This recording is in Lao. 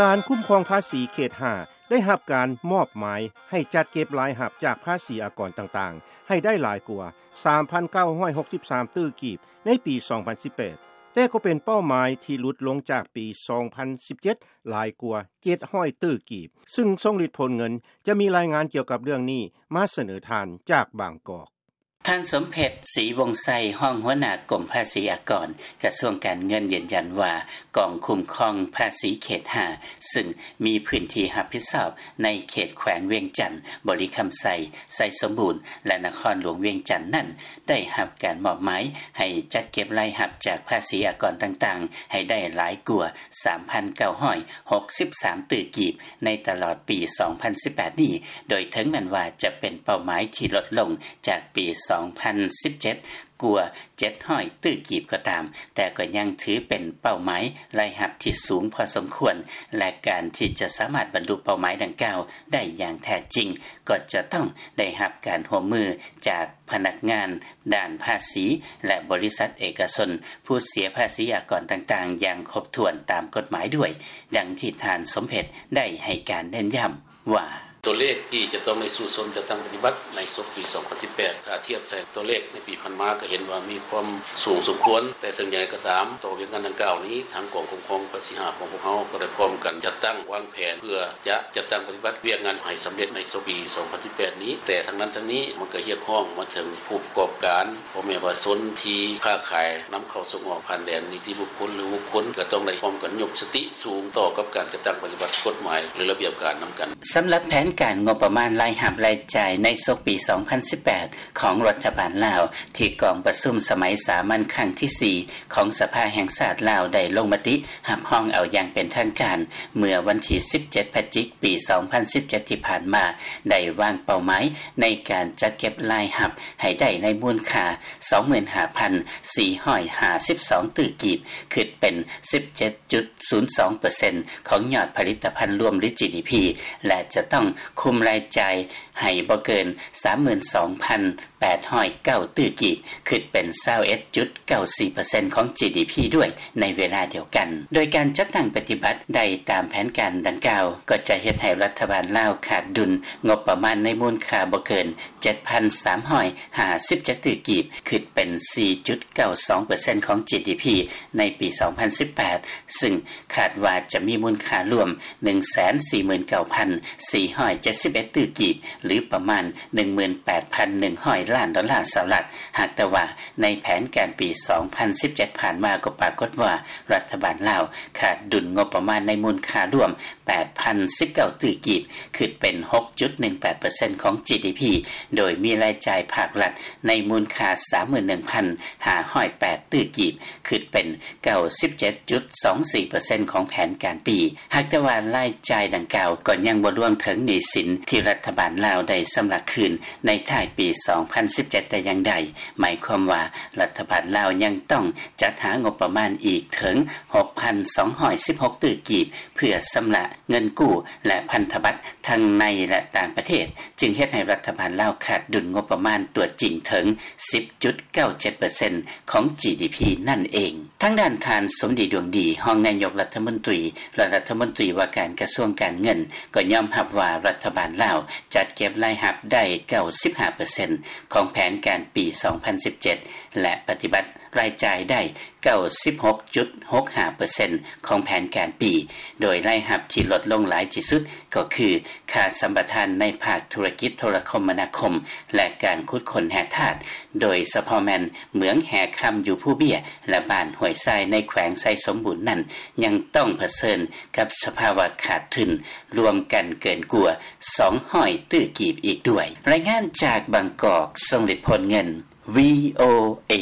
ການຄຸ້ມຄອງພາສີເຂດຫ້າ ໄດ້ຮັບການມອບໝາຍໃຫ້ຈັດເກັບລາຍຮັບຈາກພາສີອາກອນຕ່າງໆ ໃຫ້ໄດ້ຫຼາຍກວ່າ ສາມພັນເກົ້າຮ້ອຍຫົກສິບສາມ ຕື້ກີບ ໃນປີສອງພັນສິບແປດ ແຕ່ກໍເປັນເປົ້າໝາຍທີ່ຫຼຸດລົງຈາກປີສອງພັນສິບເຈັດ ຫຼາຍກວ່າ ເຈັດຮ້ອຍ ຕື້ກີບ ຊຶ່ງຊົງລິດ ໂພນເງິນ ຈະມີລາຍງານກ່ຽວກັບເລື່ອງນີ້ມາສະເໜີທ່ານຈາກບາງກອກ. ທ່ານ ສົມເພັດ ສີວົງໄຊ ຮອງຫົວໜ້າກົມພາສີອາກອນ ກະຊວງການເງິນ ຢືນຢັນວ່າ ກອງຄຸ້ມຄອງພາສີເຂດຫ້າ ຊຶ່ງມີພື້ນທີ່ຮັບຜິດຊອບໃນເຂດແຂວງວຽງຈັນ, ບໍລິຄຳໄຊ, ໄຊສົມບູນ ແລະ ນະຄອນຫຼວງວຽງຈັນນັ້ນ ໄດ້ຮັບການມອບໝາຍໃຫ້ຈັດເກັບລາຍຮັບຈາກພາສີອາກອນຕ່າງໆ ໃຫ້ໄດ້ຫຼາຍກວ່າ ສາມພັນເກົ້າຮ້ອຍຫົກສິບສາມ ຕື້ກີບ ໃນຕະຫຼອດປີສອງພັນສິບແປດນີ້ ໂດຍເຖິງແມ່ນວ່າຈະເປັນເປົ້າໝາຍທີ່ຫຼຸດລົງຈາກປີສອງພັນສິບເຈັດ ກວ່າ ເຈັດຮ້ອຍ ຕື້ກີບກໍຕາມ, ແຕ່ກໍຍັງຖືເປັນເປົ້າໝາຍລາຍຮັບທີ່ສູງພໍສົມຄວນ ແລະ ການທີ່ຈະສາມາດບັນລຸເປົ້າໝາຍດັ່ງກ່າວໄດ້ຢ່າງແທ້ຈິງ ກໍຈະຕ້ອງໄດ້ຮັບການຮ່ວມມືຈາກພະນັກງານດ້ານພາສີ ແລະ ບໍລິສັດເອກະຊົນ ຜູ້ເສຍພາສີອາກອນຕ່າງໆ ຢ່າງຄົບຖ້ວນຕາມກົດໝາຍດ້ວຍ, ດັ່ງທີ່ທ່ານ ສົມເພັດ ໄດ້ໃຫ້ການເນັ້ນຢ້ຳວ່າ: ຕົວເລກທີ່ຈະຕ້ອງໄດ້ສູ້ຊົນຈັດຕັ້ງປະຕິບັດໃນສົກປີສອງພັນສິບແປດ ຖ້າທຽບໃສ່ຕົວເລກໃນປີຜ່ານມາ ກໍເຫັນວ່າມີຄວາມສູງສົມຄວນ, ແຕ່ເຖິງຢ່າງໃດກໍຕາມ ຕໍ່ວຽກງານດັ່ງກ່າວນີ້ ທາງກອງຄຸ້ມຄອງພາສີຫ້າຂອງພວກເຮົາ ກໍໄດ້ພ້ອມກັນຈັດຕັ້ງວາງແຜນ ເພື່ອຈະຈັດຕັ້ງປະຕິບັດວຽກງານໃຫ້ສຳເລັດໃນສົກປີສອງພັນສິບແປດນີ້. ແຕ່ທັງນັ້ນທັງນີ້ ມັນກໍຮຽກຮ້ອງມາເຖິງຜູ້ປະກອບການ ພໍ່ແມ່ປະຊາຊົນທີ່ຄ້າຂາຍນຳເຂົ້າສົ່ງອອກຜ່ານແດນ ນິຕິບຸກຄົນ ຫຼື ບຸກຄົນ ກໍຕ້ອງໄດ້ພ້ອມກັນຍົກສະຕິສູງຕໍ່ກັບການຈັດຕັ້ງປະຕິບັດກົດໝາຍ ຫຼື ລະບຽບການນຳກັນ. ສຳລັບແຜນການງົບປະມານລາຍຮັບລາຍຈ່າຍໃນສົກປີສອງພັນສິບແປດ ຂອງລັດຖະບານລາວ ທີ່ກອງປະຊຸມສະໄໝສາມັນຄັ້ງທີສີ່ ຂອງສະພາແຫ່ງຊາດລາວ ໄດ້ລົງມະຕິຮັບຮອງເອົາຢ່າງເປັນທາງການ ເມື່ອວັນທີສິບເຈັດ ພະຈິກ ປີສອງພັນສິບເຈັດ ທີ່ຜ່ານມາ ໄດ້ວາງເປົ້າໝາຍໃນການຈັດເກັບລາຍຮັບໃຫ້ໄດ້ໃນມູນຄ່າ ສອງໝື່ນຫ້າພັນສີ່ຮ້ອຍຫ້າສິບສອງ ຕື້ກີບ, ຄິດເປັນສິບເຈັດຈຸດສູນສອງເປີເຊັນ ຂອງຍອດຜະລິດຕະພັນລວມ ຫຼື ຈີດີພີ ແລະ ຈະຕ້ອງຄຸມລາຍຈ່າຍໃຫ້ບໍ່ເກີນ ສາມໝື່ນສອງພັນແປດຮ້ອຍເກົ້າ ຕື້ກີບ, ຄິດເປັນ ຊາວເອັດຈຸດເກົ້າສີ່ເປີເຊັນ ຂອງ ຈີດີພີ ດ້ວຍໃນເວລາດຽວກັນ. ໂດຍການຈັດຕັ້ງປະຕິບັດໄດ້ຕາມແຜນການດັ່ງກ່າວ ກໍຈະເຮັດໃຫ້ລັດຖະບານລາວຂາດດຸນງົບປະມານໃນມູນຄ່າບໍ່ເກີນ ເຈັດພັນສາມຮ້ອຍຫ້າສິບເຈັດ ຕື້ກີບ, ຄິດເປັນ ສີ່ຈຸດເກົ້າສອງເປີເຊັນ ຂອງ ຈີດີພີ ໃນປີສອງພັນສິບແປດ ຊຶ່ງຄາດວ່າຈະມີມູນຄ່າລວມ ໜຶ່ງແສນສີ່ໝື່ນເກົ້າພັນສີ່ຮ້ອຍເຈັດສິບເອັດ ຕື້ກີບ ຫຼື ປະມານ ໜຶ່ງໝື່ນແປດພັນໜຶ່ງຮ້ອຍລ້ານດອນລາສະຫະລັດ. ຫາກແຕ່ວ່າໃນແຜນການປີສອງພັນສິບເຈັດ ຜ່ານມາ ກໍປາກົດວ່າ ລັດຖະບານລາວຂາດດຸນງົບປະມານໃນມູນຄ່າລວມ ແປດພັນສິບເກົ້າ ຕື້ກີບ, ຄິດເປັນ ຫົກຈຸດໜຶ່ງແປດເປີເຊັນ ຂອງ ຈີດີພີ ໂດຍມີລາຍຈ່າຍພາກລັດໃນມູນຄ່າ ສາມໝື່ນໜຶ່ງພັນຫ້າຮ້ອຍແປດ ຕື້ກີບ, ຄິດເປັນ ເກົ້າສິບເຈັດຈຸດສອງສີ່ເປີເຊັນ ຂອງແຜນການປີ. ຫາກແຕ່ວ່າລາຍຈ່າຍດັ່ງກ່າວກໍຍັງບໍ່ລວມເຖິງໜີ້ສິນທີ່ລັດຖະບານລາວໄດ້ຊຳລະຄືນໃນທ້າຍປີສອງພັນສິບເຈັດ ແຕ່ຢ່າງໃດ, ໝາຍຄວາມວ່າລັດຖະບານລາວຍັງຕ້ອງຈັດຫາງົບປະມານອີກເຖິງ ຫົກພັນສອງຮ້ອຍສິບຫົກ ຕື້ກີບ ເພື່ອຊຳລະເງິນກູ້ ແລະ ພັນທະບັດທັງໃນ ແລະ ຕ່າງປະເທດ, ຈຶ່ງເຮັດໃຫ້ລັດຖະບານລາວຂາດດຸນງົບປະມານຕົວຈິງເຖິງ ສິບຈຸດເກົ້າເຈັດເປີເຊັນ ຂອງ ຈີດີພີ ນັ້ນເອງ. ທາງດ້ານທ່ານ ສົມດີ ດວງດີ ຮອງນາຍົກລັດຖະມົນຕີ ແລະ ລັດຖະມົນຕີວ່າການກະຊວງການເງິນ ກໍຍອມຮັບວ່າລັດຖະບານລາວຈັດເກັບລາຍຮັບໄດ້ ເກົ້າສິບຫ້າເປີເຊັນ ຂອງແຜນການປີສອງພັນສິບເຈັດ ແລະ ປະຕິບັດລາຍຈ່າຍໄດ້ ເກົ້າສິບຫົກຈຸດຫົກຫ້າເປີເຊັນ ຂອງແຜນການປີ, ໂດຍລາຍຮັບທີ່ລົດລົງຫຼາຍທີ່ສຸດກໍຄື ຄ່າສຳປະທານໃນພາກທຸລະກິດໂທລະຄົມມະນາຄົມ ແລະ ການຂຸດຄົ້ນແຮ່ທາດ, ໂດຍສະເພາະແມ່ນເໝືອງແຮ່ຄຳຢູ່ພູເບ້ຍ ແລະ ບ້ານຫ້ວຍຊາຍ ໃນແຂວງໄຊສົມບູນນັ້ນ ຍັງຕ້ອງຜະເຊີນກັບສະພາວະຂາດທຶນລວມກັນເກີນກວ່າ ສອງຮ້ອຍ ຕື້ກີບອີກດ້ວຍ. ລາຍງານຈາກບາງກອກ, ຊົງລິດ ໂພນເງິນ, ວີໂອເອ.